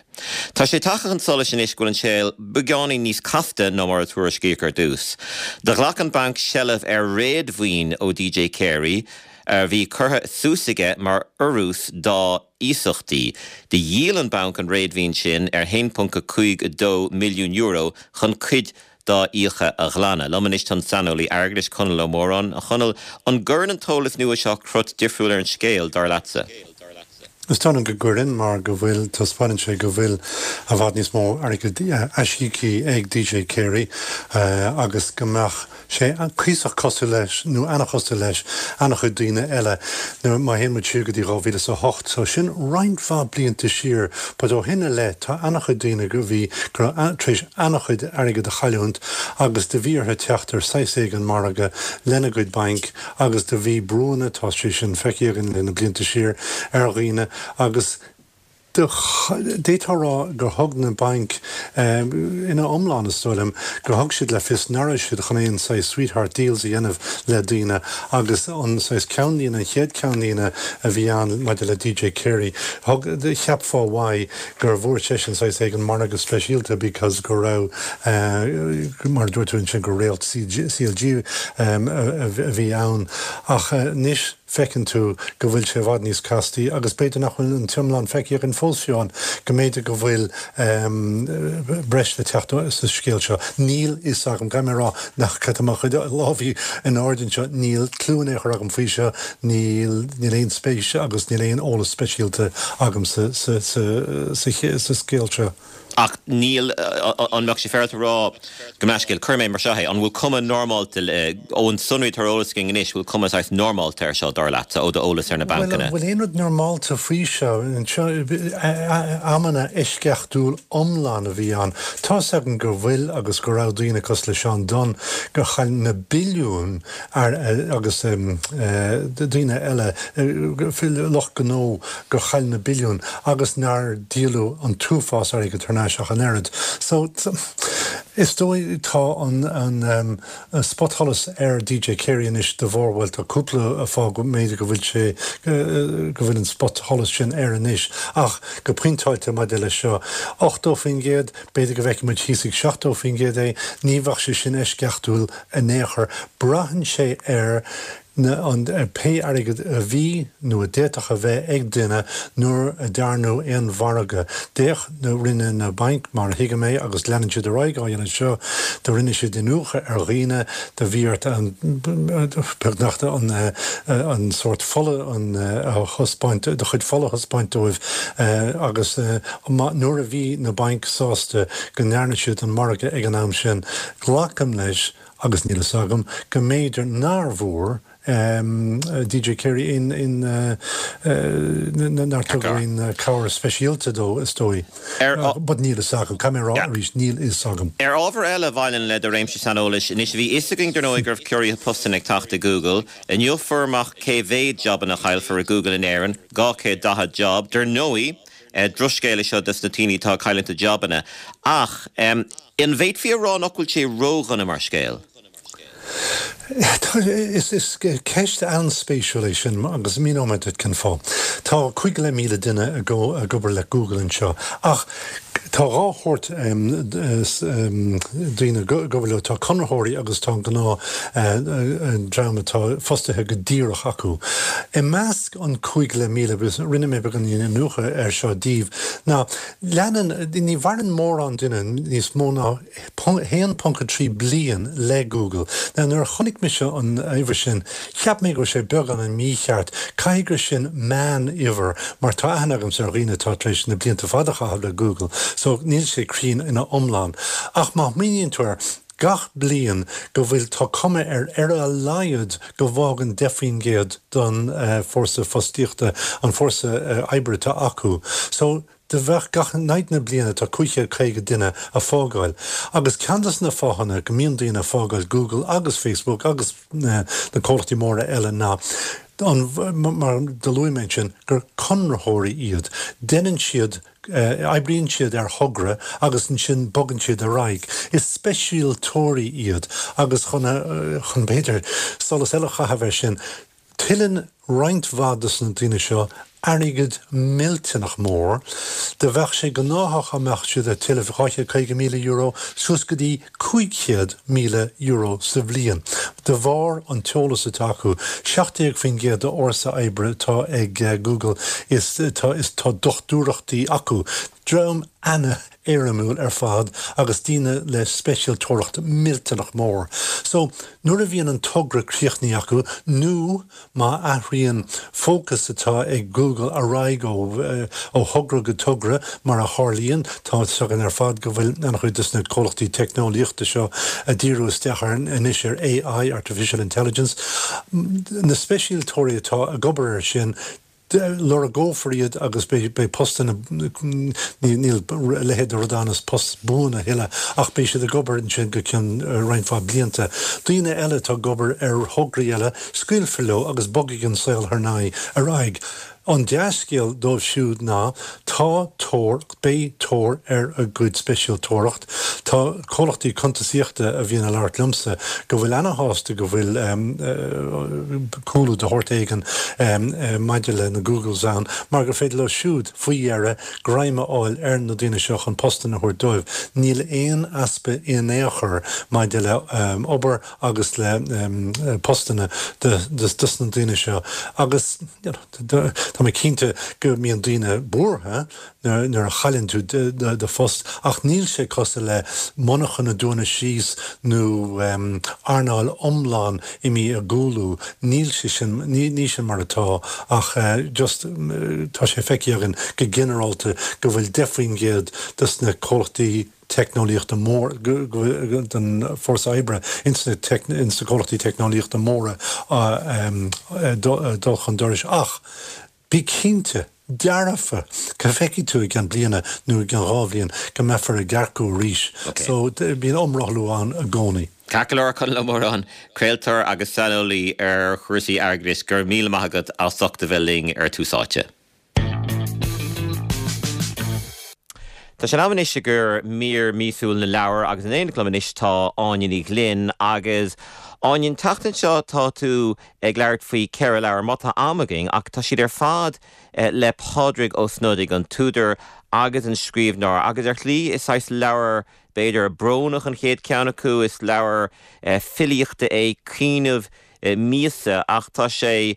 Tá sé tagtha chun solais anois go bhfuil an scéal beagáinín níos casta ná mar a tuairiscíodh ar dtús. Do ghlac an banc seilbh ar réadmhaoin ó DJ Carey, a bhí curtha suas aige mar urrús dá iasachtaí. Do dhíol an banc an réadmhaoin sin ar €1.52 milliún chun cuid dá fhiacha a ghlanadh. Liom anois tá an saineolaí airgeadais, Conall Ó Móráin. A Chonaill, an gcuireann an t-eolas nua seo crot difriúil ar an scéal, dar leatsa? Is dóigh liom go gcuireann, mar go bhfuil, taispeánann sé go bhfuil i bhfad níos mó airgid aisíoctha ag DJ Carey agus go mbeadh sé cuíosach cosúil leis, nó ana-chosúil leis, ana-chuid daoine eile. Nuair, má théann muid siar go dtí 2008, so sin roinnt mhaith blianta siar, but ó shin i leith tá ana-chuid daoine go bhí, go raibh, tar éis ana-chuid airgid a chailliúint agus do bhí orthu teacht ar saghas éigin margadh lena gcuid bainc agus do bhí brúanna, tá sé sin feicthe againn le na blianta siar, ar dhaoine agus D'fhéadfá a rá gur thug na bainc, ina iomlán is dóigh liom, gur thug siad le fios nach raibh siad chun aon saghas sweetheart deals a dhéanamh le daoine agus an saghas ceannlíne, an chéad ceannlíne a bhí ann maidir le DJ Carey, thug, cheapfá uaidh gur bhfuair seisean saghas éigin margadh speisialta because go raibh, mar a dúirt tú ansin, gur réalt CLG a bhí ann. Ach anois. feiceann tú go bhfuil sé i bhfad níos castaí agus b'fhéidir nach bhfuil an t-iomlán feicthe againn fós fiú ann, go mb'fhéidir go bhfuil breis le teacht sa scéal seo. Níl fhios agam, caithfidh mé a rá nach, tá mo chuid lámhaí in airde anseo, níl cliú in aon chor agam faoi seo, níl, níl aon spéis agus níl aon eolas speisialta agam sa, sa, sa, sa scéal seo. Ach níl, an mbeadh sé féaráilte a rá go meascéal, cuirfidh mé mar seo é, an bhfuil cuma normálta, ón sonraí atá ar eolas againn anois, bhfuil cuma saghas normálta air seo, dar leatsa, ó d'eolas ar na Bhuel, bancanna? an bhfuil aon rud normálta faoi seo? Anseo, amanna eisceachtúil iomlán a bhí ann. Tá's agam go bhfuil agus go raibh daoine cosúil le Seán Dunne gur chaill na billiúin agus daoine eile, lucht gnó gur chaill na billiúin agus nár díoladh an t-uafás airgid thar n-ais ach an oiread. So, is dóigh tá an an spotsholas ar DJ Carey anois de bharr, bhuel tá cúpla fáth go mb'fhéidir go bhfuil sé, go bhfuil an spotsholas sin air anois ach go pointeáilte maidir leis seo, 80%, b'fhéidir go bhfeicfidh muid thíos ag 70% é, ní bheadh sé sin eisceachtúil in aon chor. Braitheann sé ar na, an, pé airgead a bhí nó a d'fhéadfadh a bheith ag duine nuair a dearnadh aon mhargadh. D'fhéach na, rinne na bainc, mar a thuigim é, agus leanann siad ar aghaidh á dhéanamh seo, do rinne siad iniúchadh ar dhaoine, do bhí ort an, beagnach an, an sórt fola an, a thaispeáint, do chuid fola a thaispeáint dóibh agus má, nuair a bhí na bainc sásta go ndearna siad an margadh ag an am sin, glacaim leis, Agus níl fhios agam, go mb'fhéidir nár bhfuair DJ Carey aon, nár tugadh aon cabhair speisialta dó, is dóigh. But níl fhios agam, caithfidh mé a rá arís, níl fhios agam. Ar ábhar eile a bhaineann le do réimse saineolais, anois bhí fhios againn dar ndóigh go raibh ciorruithe postanna ag teacht i Google. Inniu fuair amach cé mhéad jabanna a chaillfear i Google in Éirinn, 240 job. Dar ndóigh, drochscéal é seo dos na daoine atá ag cailliúint a jabanna. Ach an bhféadfaí a rá nach bhfuil sé ródhona mar scéal? Is ceist an-spéisiúil é sin agus míneoidh mé duit cén fáth. Tá 5,500 duine ag obair le Google anseo ach tá dhá shórt daoine ag obair leo, tá conraitheoirí agus tá an gnáth dream atá fostaithe go díreach acu. I measc an 5,500, agus rinne mé beagáinín iniúchadh air seo daoibh, ná leanann, ní mhaireann mórán duine níos mó ná 1.3 bliain le Google. Now nuair a chonaic mise an uimhir sin, cheap mé go raibh sé beagáinín mícheart. Caithfidh gur sin meán-uimhir, mar tá aithne agamsa ar dhaoine atá tar éis na blianta fada a chaitheamh le Google, so níl sé cruinn ina iomlán. Ach má smaoiníonn tú air, gach bliain go bhfuil, tá cuma air ar a laghad go bhfágann 10% den fórsa fostaíochta, an fórsa oibre atá acu. So, do bheadh gach, in aghaidh na bliana tá 550 duine a fágáil. Agus ceann des na fáthanna go mbíonn daoine a fágáil Google agus Facebook agus na comhlachtaí móra eile ná. An, mar do luaigh mé ansin, gur conraitheoirí iad. Deineann siad, oibríonn siad ar thogra agus ansin bogann siad ar aghaidh. Is speisialtóirí iad agus chun, chun b'fhéidir solas eile a chaitheamh air sin, Tuilleann roinnt mhaith dos na daoine seo airgead millteanach mór. Do bheadh sé gnáthach dá mbeadh siad ag tuilleamh €250,000 suas go dtí €500,000 sa bhliain de bharr an t-eolas atá acu. 17% de fhórsa oibre atá ag Google is tá is tá dochtúireachtaí acu. Dream ana-éirimiúil ar fad agus daoine le speisialtóireacht millteanach mór. So, nuair a bhíonn an togra críochnaithe acu, nó má athraíonn fócas atá ag Google ar aghaidh ó ó thogra go togra, mar a tharlaíonn, tá fhios againn ar fad go bhfuil an-chuid de na comhlachtaí teicneolaíochta seo ag díriú isteach ar anois ar AI, Artificial Intelligence, na speisialtóirí atá ag obair air sin, lorgófar iad agus beidh postanna, níl a leithéid de rud ann is post buan a thuilleadh, ach beidh siad ag obair ansin go cionn roinnt mhaith blianta. Daoine eile atá ag obair ar thograí eile, scaoilfear leo agus bogfaidh an saol thar n-aghaidh ar aghaidh. An dea-scéal dóibh siúd ná tá tóir, beidh tóir ar a gcuid speisialtóireacht. Tá comhlachtaí cuntasaíochta a bhíonn ag labhairt liomsa go bhfuil ana-shásta go bhfuil cúlú de shórt éigin maidir le na Googles ann mar gur féidir leo siúd, faoi dheireadh, greim a fháil ar na daoine seo chun postanna a thabhairt dóibh. Níl aon easpa in aon chor maidir le obair agus le postanna dos na daoine seo agus tá mé cinnte go mbíonn daoine buartha nuair a chailleann tú do phost ach níl sé cosúil le monarchan ag dúnadh síos nó earnáil iomlán imithe i gcúlú, níl sé sin, ní sin mar atá ach just tá sé feicthe againn go ginearálta go bhfuil 10% dos na comhlachtaí teicneolaíochta mór, den fórsa oibre ins na comhlachtaí teicneolaíochta móra ag dul chun dorais ach Bí cinnte, dearfa, go bhfeicfidh tú i gceann bliana nó i gceann 2 bhliain go mbeifear ag earcú arís. So, bíonn iomrothlú ann i gcónaí. Ceart go leor, Conall Ó Móráin, craoltóir agus saineolaí ar chúrsaí airgeadais, go raibh míle maith agat as ucht a bheith linn ar Tús Áite. Tá sé in am anois i gcomhair mír míosúil na leabhar agus in éineacht liom anois tá Áine Ní Ghlinn agus Áine, an tseachtain seo tá tú ag labhairt faoi cheithre leabhar, má tá am againn, ach tá siad ar fad le Pádraig Ó Snodaigh, an t-údar agus an scríbhneoir, agus ar shlí is saghas leabhar b'fhéidir brónach an chéad cheann acu, is leabhar filíochta é Caoineadh míosa ach tá sé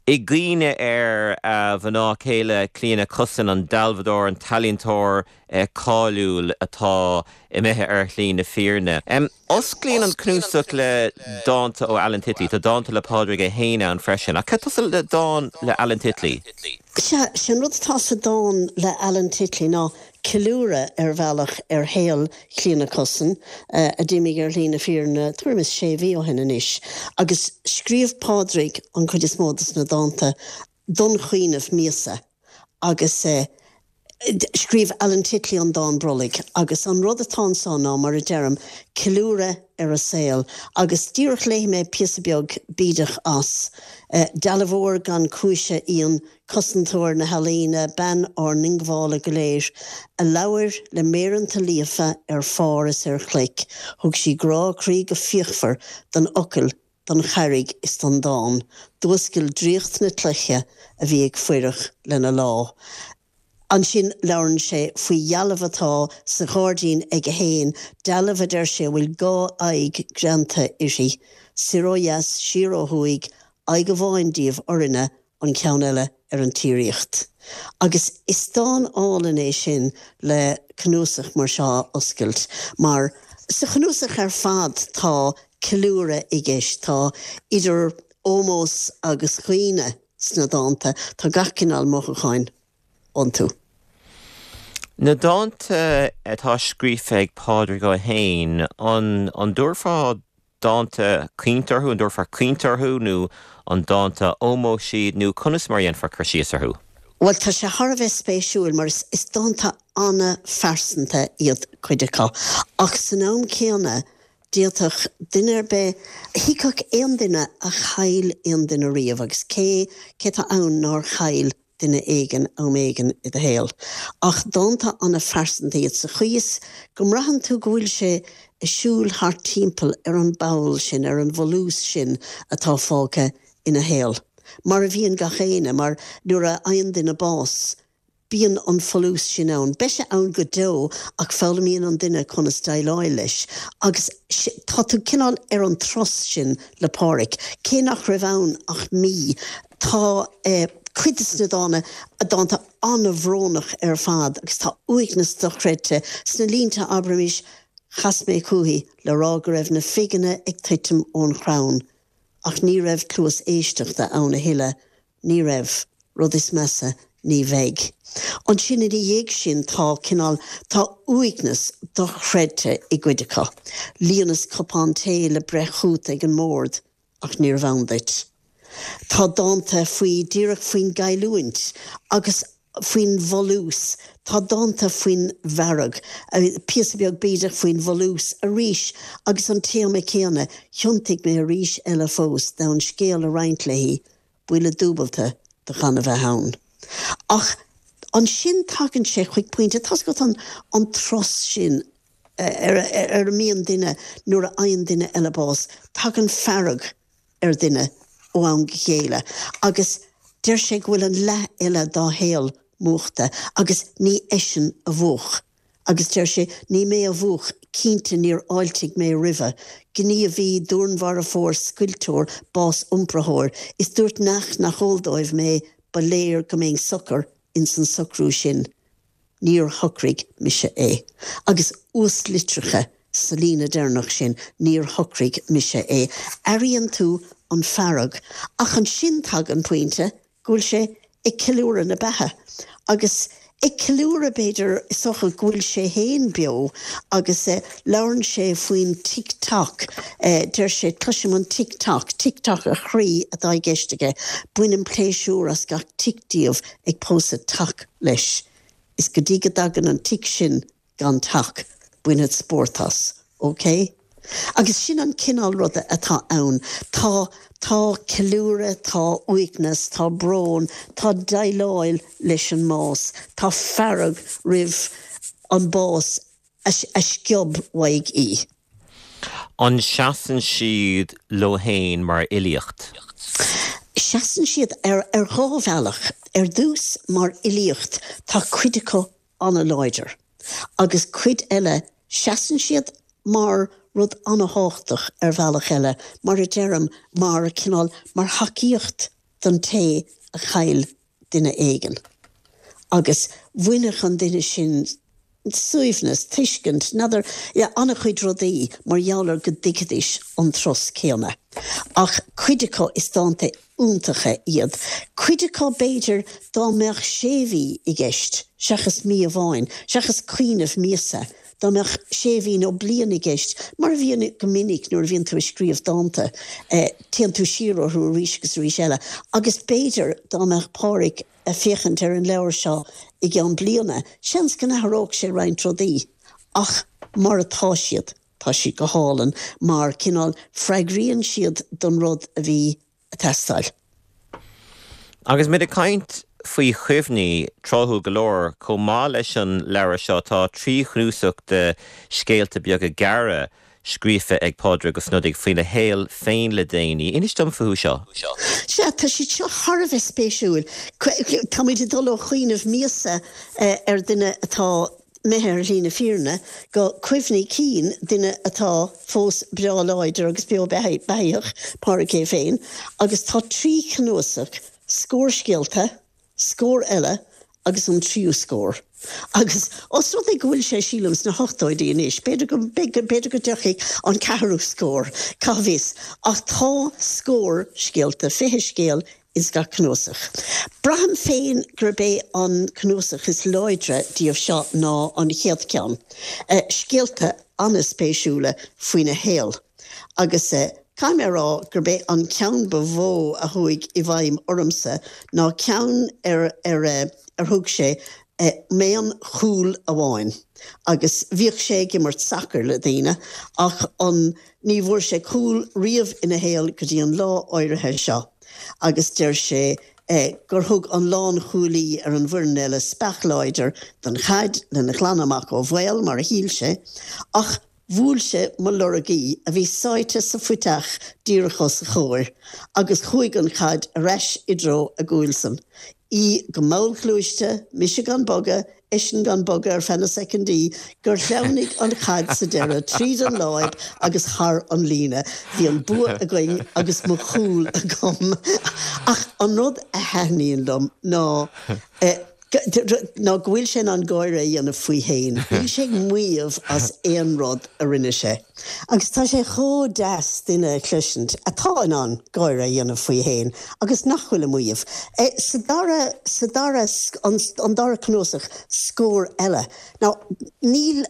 i gcuimhne ar a mhná céile Clíona Cussen, an dealbhadóir, an t-ealaíontóir cáiliúil atá imithe ar shlí na fírinne. Osclaíonn an cnuasach le dánta ó Alan Titley. Tá dánta le Pádraig é féin ann freisin. Ach cad tosú le dán le Alan Titley? Sea, sé an rud atá sa dán le Alan Titley ná ceiliúradh ar bhealach ar shaol Chlíona Cussen, a d'imigh ar shlí na fírinne tuairim is sé mhí ó shin anois, agus scríobh Pádraig an chuid is mó de na dánta don chaoineadh míosa agus scríobh Alan Titley an dán brollaigh agus an rud atá anso ná, mar a deirim, ceiliúradh ar a saol agus díreach léifidh mé píosa beag bídeach as. Dealbhóir gan cúis í an cosantóir na healaíne, bean ár ndiongbhála go léir, a labhair le méireanta líofa ar phár is ar chloich, thug sí grá croí go fíochmhar don fhocal, don charraig is don dán, d'fhuascail draíocht na cloiche a bhí ag fuireach lena lá. Ansin labhrann sé faoi dhealbh atá sa ghairdín aige fhéin, dealbh a deir sé a bhfuil 2 aghaidh greanta uirthi, soir ó dheas, siar ó thuaidh, aghaidh amháin díobh orainne, an ceann eile ar an tsíoraíocht. Agus is dán álainn é sin le cnuasach mar seo a oscailt, mar sa chnuasach ar fad tá ceiliúradh i gceist, tá idir ómós agus chaoineadh sna dánta, tá gach cineál mothúcháin iontu. Na dánta atá scríofa ag Pádraig Ó hÉin, an dtabharfá dánta caointe orthu, an dtabharfá caointe orthu nó an dánta ómóis iad nó conas mar a dhéanfá cur síos orthu? Bhuel, tá sé thar a bheith spéisiúil mar is dánta an-phearsanta iad cuid acu ach san am céanna. D'fhéadfadh duine ar bith, thuigfeadh aon duine a chaill aon duine riamh, agus cé, cé atá ann nár chaill duine éigin am éigin i do shaol? Ach dánta an-phearsanta iad sa chaoi is go mbraitheann tú go bhfuil sé ag siúl thart timpeall ar an bpoll sin, ar an bhfolús sin atá fágtha ina shaol. Mar a bhíonn gach éinne, mar nuair a fhaigheann duine bás, Bíonn an folús sin ann. Beidh sé ann go deo ach foghlaimíonn an duine conas déileáil leis. Agus tá tú cineál ar an turas sin le Páraic. Cé nach raibh ann ach mí, tá cuid de na dána, dánta an-bhrónach ar fad agus tá uaigneas dochreidte sna línte, abraimis, Chas mé chúithi le rá go raibh na figeanna ag tuitim ón chrann ach ní raibh cluas éisteachta ann a thuilleadh Ní raibh. Rud is measa, ní bheidh. Ansin ina dhiaidh sin tá cineál, tá uaigneas dochreidte i gcuid acu. Líonas cupán tae le breith chút ag an mbord ach níorbh ann duit. Tá dánta faoi, díreach faoin gcailliúint agus faoin bhfolús. Tá dánta faoin bhfearg, píosa beag bídeach faoin bhfolús arís agus an téama céanna, thiontaigh mé arís eile fós d'fhonn scéal a roinnt léi, buille dúbalta do chan a bheith ann. Ach ansin tagann sé chuig pointe, tá's agat an an turas sin ar ar a mbíonn duine nuair a fhaigheann duine eile bás, tagann fearg ar dhuine ó am go chéile agus deir sé go bhfuil an leath eile dá shaol múchta agus ní eisean a mhúch agus deir sé ní mé a mhúch, cinnte níor fháiltigh mé roimhe, gníomhaí, dúnmharfóir, scoilteoir, bás-iompraitheoir, is dúirt neach nach eol dóibh mé ba léir go mbeinn socair ins an socrú sin. Níor shocraigh mise é. Agus uaslitreacha sa líne deireanach sin, níor shocraigh mise é. Airíonn tú an fearg. Ach ansin tagann pointe go bhfuil sé ag ceiliúradh na beatha. Agus ag ceiliúradh, b'fhéidir, is dócha, go bhfuil sé féin beo agus labhrann sé faoin tic toc. Deir sé, cloisim an tic toc, tic toc a chroí atá i gceist aige. Bainim pléisiúr as gach tic díobh ag pósadh tac leis. Is go dtí go dtagann an tic sin gan tac, bainfead spórt as. OK? Agus sin an cineál ruda atá ann. Tá, tá ceiliúradh, tá uaigneas, tá brón, tá déileáil leis an mbás, tá fearg roimh an bás a sciob uaidh í. An seasann siad leo féin mar fhilíocht? Seasann siad ar dhá bhealach. Ar dtús, mar fhilíocht, tá cuid acu an-láidir, agus cuid eile, seasann siad mar rud an-thábhachtach ar bhealach eile, mar a deirim, mar cineál, mar thacaíocht don té a chaill duine éigin agus bhainfeadh an duine sin suaimhneas, tuiscint, n'fheadar, yeah, an-chuid rudaí mar gheall ar go dtuigfidís an turas céanna. Ach cuid acu is dánta iontacha iad. Cuid acu b'fhéidir dá mbeadh sé mhí i gceist seachas mí amháin, seachas cuimhneamh míosa, Dá mbeadh sé mhí nó bliain i gceist, mar a bhíonn go minic nuair a bhíonn tú ag scríobh dánta, téann tú siar orthu arís agus arís eile. Agus b'fhéidir dá mbeadh Páraic ag féachaint ar an leabhar seo i gceann bliana, seans go n-athródh sé roinnt rudaí. Ach mar atá siad, tá siad go hálainn mar, cineál, freagraíonn siad don rud a bhí ag teastáil. Agus muid ag caint faoi chuimhní, tráthúil go leor, chomh maith leis an leabhar seo tá 3 chnuasach de scéalta beaga gearra scríofa ag Pádraig Ó Snodaigh faoina shaol féin le déanaí. Inis dom fúthu seo. Sea, tá siad seo thar a bheith spéisiúil. Táimid ag dul ó chuimhneamh míosa ar dhuine atá imithe ar shlí na fírinne, go cuimhní cinn duine atá fós breá láidir agus beo beathaíoch, Pádraic é féin, agus tá 3 chnuasach, scór scéalta, scór eile agus an tríú scór. Agus os rud é go bhfuil sé, sílim, sna hochtóidí anois, b'fhéidir go, b'fhéidir go dtiocfaidh an ceathrú scór, cá bhfios, ach tá scór scéalta, 20 scéal ins gach cnuasach. Braithim féin gurb é an cnuasach is láidre díobh seo ná an chéad cheann. Scéalta an-spéisiúla faoina shaol. Agus caithfidh mé a rá gurb é an ceann ba mhó a chuaigh i bhfeidhm ormsa ná ceann ar ar ar thug sé. M'aon chúl amháin agus bhíodh sé ag imirt sacair le daoine ach an ní bhfuair sé cúl riamh ina shaol go dtí an lá áirithe seo agus deir sé gur thug an lánchúlaí ar an bhfoireann eile speach láidir don chaid lena ghlanadh amach ó bhaol, mar a shíl sé, ach Bhuail sé mo lorgaí, a bhí sáite sa phuiteach díreach os a chomhair, agus chuaigh an chaid ar ais i dtreo a gcúilsan. Í go mallghluaiste, mise gan bogadh, eisean gan bogadh ar feadh na soicindí, gur shleamhnaigh an chaid sa deireadh tríd an láib agus thar an líne. Bhí an bua againn agus mo chúl agam. Ach an rud a thaitníonn liom ná. ná go bhfuil sé in ann gáire a dhéanamh faoi fhéin. Níl sé ag maíomh as aon rud a rinne sé. Agus tá sé chomh deas duine a chloisint atá in ann gáire a dhéanamh faoi fhéin agus nach bhfuil ag maíomh. Sa dara, sa dara, an dara cnuasach, Scór Eile. Now, níl,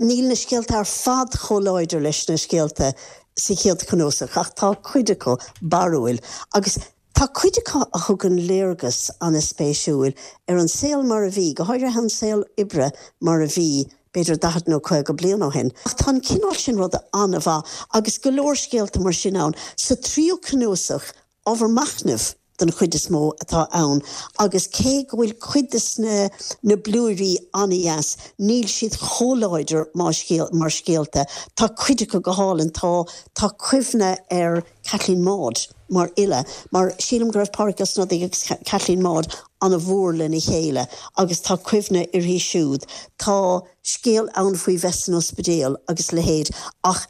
níl na scéalta ar fad chomh láidir leis na scéalta sa chéad chnuasach ach tá cuid acu barrúil agus Tá cuid acu a thugann léargas an-spéisiúil ar an saol mar a bhí, go háirithe an saol oibre mar a bhí b'fhéidir 40 nó 50 bliain ó shin. Ach tá an cineál sin ruda an-mhaith agus go leor scéalta mar sin ann. Sa tríú cnuasach, ábhar machnaimh den chuid is mó atá ann agus cé go bhfuil cuid de na blúirí an-dheas, níl siad chomh láidir mar scéalta. Tá cuid acu go hálainn. Tá tá cuimhne ar Caitlín Maude mar fhile, mar sílim go raibh Pádraig Ó Snodaigh agus Caitlín Maude an-mhór lena chéile agus tá cuimhne uirthi siúd. Tá scéal ann faoi bheith san ospidéal agus a leithéid ach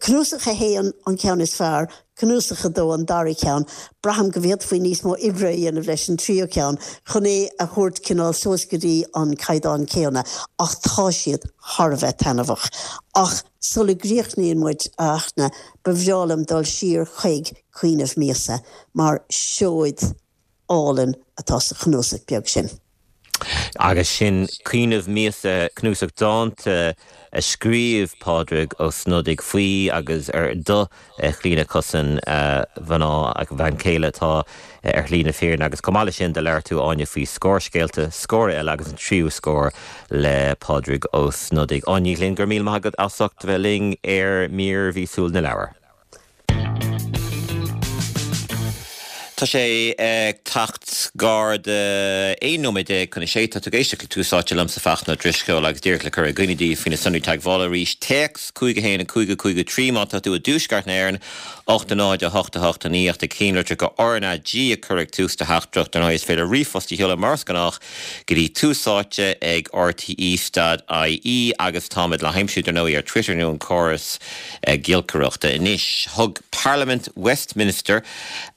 cnuasach a haon an ceann is fearr, cnuasach a dó an dara ceann. Braithim go bhféadfaí níos mó oibre a dhéanamh leis an tríú ceann chun é a thabhairt cineál suas go dtí an caighdeán céanna ach tá siad thar a bheith taitneamhach. Ach. Sula gcríochnaíonn muid, a Fhachtna, ba bhreá liom dul siar chuig Caoineadh Míosa, mar seoid álainn atá sa chnuasach beag sin. Agus sin Caoineadh Míosa, cnuasach dánta a scríobh Pádraig Ó Snodaigh faoi agus ar do Chlíona Cussen, a mhná, a bhean chéile atá ar shlí na fírinne agus chomh maith leis sin do labhair tú Áine faoi scór scéalta, scór eile agus an tríú scór le Pádraig Ó Snodaigh. Áine Ní Ghlinn, go raibh míle maith agat as ucht a bheith linn ar mír mhíosúil na leabhar. Tá sé ag teacht gar do 11 nóiméad chun a sé. Tá tú ag éisteacht le Tús Áite liomsa Fachtna Ó Drisceoil agus díreach le cur i gcuimhne daoibh faoi na sonraí teagmhála arís, téacs 5 1 5 5 3 má tá tú i dtuaisceart na hÉireann, 8 0 8 8 9 ach na cinnlitreacha RnaG a chur ag tús do theachtaireacht. Dar ndóigh is féidir ríomhphost a sheoladh mar is gnách go dtí Tús Áite ag rte stad ie agus táimid le haimsiú dar ndóigh ar Twitter nó an córas giolcaireachta. Anois, thug Parlaimint Westminster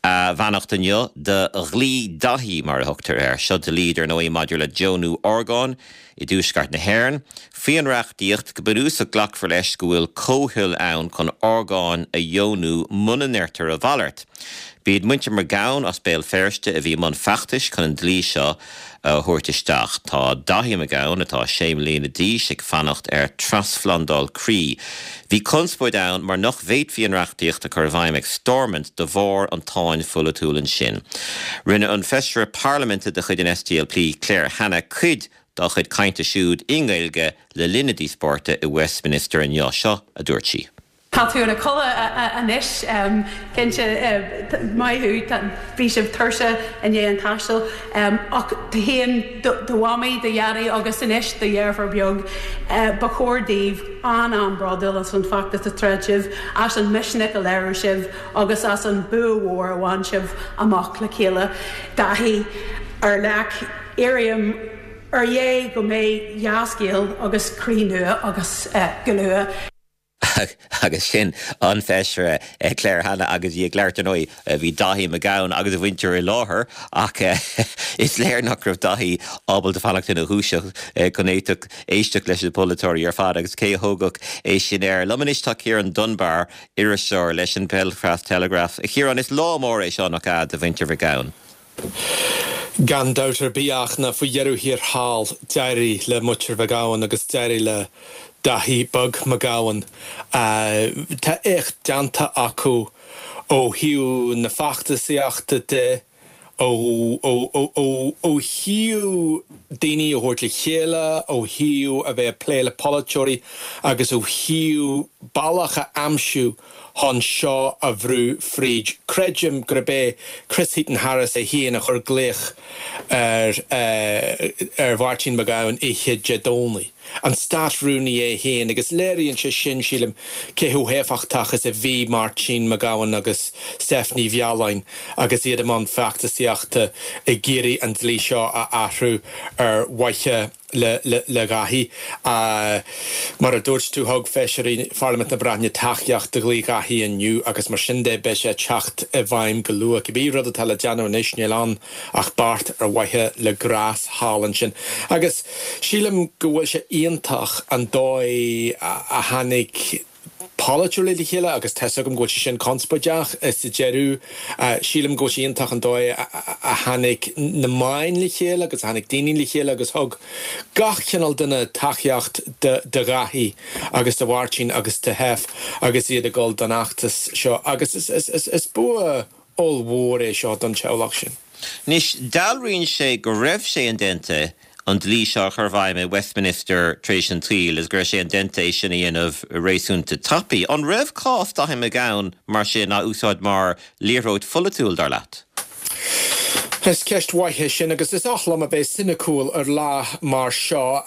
a bheannacht inniu do Dhlí Daithí, mar a thugtar air. Seo dlí, dar ndóigh, maidir le deonú orgán i dtuaisceart na hÉireann. Faoin reachtaíocht, go bunúsach glacfar leis go bhfuil comhthoil ann chun orgáin a dheonú muna ndeirtear a mhalairt. B'iad muintir McGowan as Béal Feirste a bhí i mbun feachtais chun an dlí seo a thabhairt isteach. Tá Daithí McGowan, atá sé mbliana d'aois, ag fanacht ar trasphlandáil croí. Bhí conspóid ann mar nach bhféadfaí an reachtaíocht a chur i bhfeidhm ag Stormont de bharr an tsáinn pholaitiúil ansin. Rinne an Feisire Parlaiminte de chuid an SDLP, Claire Hanna, cuid dá chuid cainte siúd i nGaeilge le linn na díospóireachta i Westminster inniu. Seo a dúirt sí. Tá tú ina chodladh anois, cinnte. Maith thú, bhí sibh tuirseach i ndiaidh an taistil. Ach tú féin, do mhamaí, do dhaidí agus anois do dheirfiúr beag, ba chóir daoibh an-an-bhródúil as an bhfeachtas a throid sibh, as an misneach a léirigh sibh agus as an bua mhór a bhain sibh amach le chéile. Daithí, ar leac, iarraim ar Dhé go mbeidh dea-scéal agus croí nua agat go luath. Agus sin an Feisire Claire Hanna agus í ag labhairt, ar ndóigh, bhí Daithí McGowan agus a mhuintir i láthair ach is léir nach raibh Daithí ábalta fanacht ina dhúiseacht chun éisteacht leis na polaiteoirí ar fad agus cé a thógfadh é sin air. Liom anois tá Ciarán Dunbar, iriseoir leis an Belfast Telegraph. A Chiaráin, is lá mór é seo, nach ea, do mhuintir McGowan? Gan dabht ar bith ach ná faoi dheireadh thiar thall, d'éirigh le muintir McGowan agus d'éirigh le Daithí beag McGowan. Tá éacht déanta acu ó thaobh na feachtasaíochta de. Ó thaobh daoine a thabhairt le chéile, ó thaobh a bheith ag plé le polaiteoirí agus ó thaobh bealach a aimsiú chun seo a bhrú fríd. Creidim gurb é Chris Heaton-Harris é féin a chuir glaoch ar ar Mháirtín Mac Gabhann oíche Dé Domhnaigh, an Stát-Rúnaí é féin, agus léiríonn sé sin, sílim, cé chomh héifeachtach is a bhí Máirtín Mac Gabhann agus Steph Ní Mhealláin agus iad i mbun feachtasaíochta ag iarraidh an dlí seo a athrú ar mhaithe le Dáithí. Mar a dúirt tú, thug feisirí Pharlaimint na Breataine tacaíocht do dhlí Dháithí inniu agus mar sin de beidh sé ag teacht i bhfeidhm go luath. Cibé rud atá le déanamh anois níl ann ach beart ar mhaithe le Grás thall ansin. Agus sílim go bhfuil sé iontach an dóigh a tháinig polaiteoirí le chéile agus tá's agam go bhfuil sé sin conspóideach sa deireadh. Sílim go bhfuil sé iontach an dóigh a tháinig na meáin le chéile agus a tháinig daoine le chéile agus thug gach cineál duine tacaíocht do Dháithí agus do Mháirtín agus do Sheph agus iad ag dul don fheachtas seo agus is bua ollmhór é seo don teaghlach sin. Anois, dealraíonn sé go raibh sé indéanta an dlí seo a chur i bhfeidhm i Westminster tar éis an tsaoil agus go raibh sé indéanta é sin a dhéanamh réasúnta tapaidh. An raibh cás Dáithí Mac Gabhann mar sin á úsáid mar liathróid pholaitiúil, dar leat? Is ceist mhaith é sin agus is oth liom a bheith soiniciúil ar lá mar seo.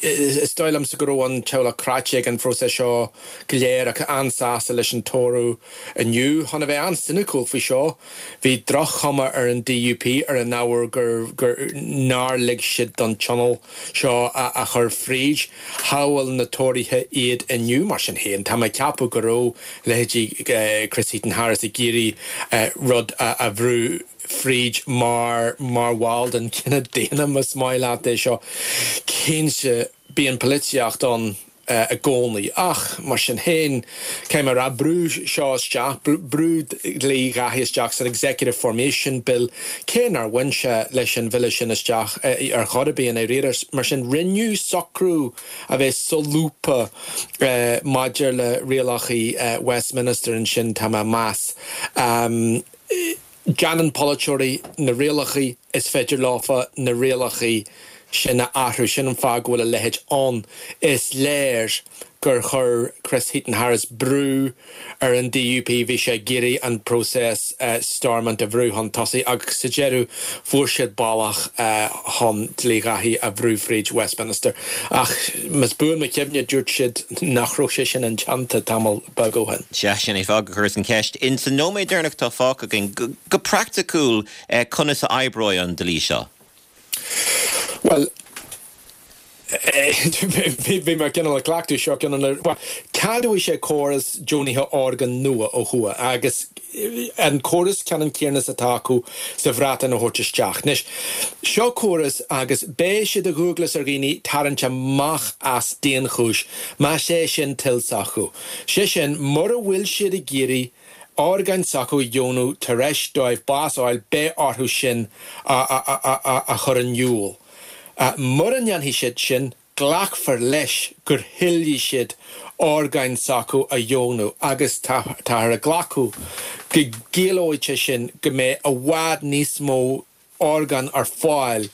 Is dóigh liomsa go raibh an teaghlach cráite ag an phróiseas seo go léir ach an-sásta leis an toradh Inniu, chun a bheith an-soiniciúil faoi seo, bhí droch-chuma ar an DUP ar an ábhar gur gur nár lig siad don tionól seo a chur fríd. Shábháil na Tóraithe iad inniu. Mar sin féin, tá mé ag ceapadh go raibh leithéidí Chris Heaton-Harris ag iarraidh rud a bhrú fríd mar mar bhall den chine daonna, más maith leat é seo. Cinnte, bíonn polaitíocht ann. i gcónaí. Ach, mar sin féin, caithfidh mé a rá, brúdh seo isteach, brúdh dlí Dháithí isteach san Executive Formation Bill, cé nár bhain sé leis an bhille sin isteach ar chor ar bith i ndáiríre. Mar sin, rinneadh socrú a bheith solúbtha maidir le rialacha Westminster ansin, tá mé ag meas. Déanann polaiteoirí na rialacha, is féidir leofa na rialacha sin a athrú. Sin an fáth go bhfuil a leithéid ann. Is léir gur chuir Chris Heaton-Harris brú ar an DUP, bhí sé ag iarraidh an próiseas Stormont a bhrú chun tosaigh agus sa deireadh fuair siad bealach chun dlí Dháithí a bhrú fríd Westminster. Ach más buan mo chuimhne dúirt siad nach raibh sé sin indéanta tamall beag ó shin. Sea, sin é fáth gur chuireas an cheist. In san nóiméad deireanach atá fágtha againn, go praiticiúil, Conas a oibreoidh an dlí seo? Bhuel, bhí mé cineál ag cleachtadh seo, cineál, bhuel, ceadóidh sé córas deonaithe orgán nua ó thuaidh agus an córas ceannann céanna is atá acu sa Bhreatain a thabhairt isteach. Anois, seo córas agus beidh sé de dhualgas ar dhaoine tarraingt amach as daonchúis más é sin toil s'acu. Sé sin, mura bhfuil siad ag iarraidh orgáin s'acu a dheonú tar éis dóibh bás a fháil, beidh orthu sin a chur in iúl. Mura ndéanfaidh siad sin, glacfar leis gur thoiligh siad orgáin s'acu a dheonú agus táthar ag glacadh go gciallóidh sé sin go mbeidh i bhfad níos mó orgán ar fáil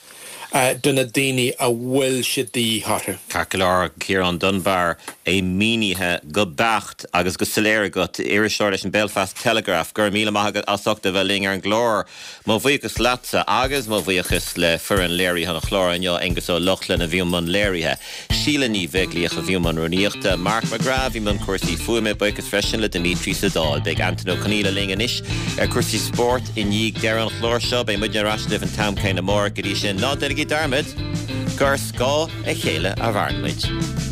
do na daoine a bhfuil sé de dhíth orthu. Ceart go leor, Ciarán Dunbar, é mínithe go beacht agus go soiléir agat, iriseoir leis an Belfast Telegraph. Go raibh míle maith agat as ucht a bheith linn ar an gclár. Mo bhuíochas leatsa agus mo bhuíochas le foireann léirithe an chláir inniu, Aengus Ó Lochlainn a bhí i mbun léirithe, Síle Ní Bheaglaoich a bhí i mbun rúnaíochta, Mark McGrath a bhí i mbun cúrsaí fuaime, buíochas freisin le Dimitri sa Dáil. Beidh Antain Ó Conghaile linn anois ar cúrsaí spóirt i ndiaidh deireadh an chláir seo. Beidh muidne ar ais libh an t-am céanna amárach. Go dtí sin, ná déanaigí dearmad gur ar scáth a chéile a mhaireann muid.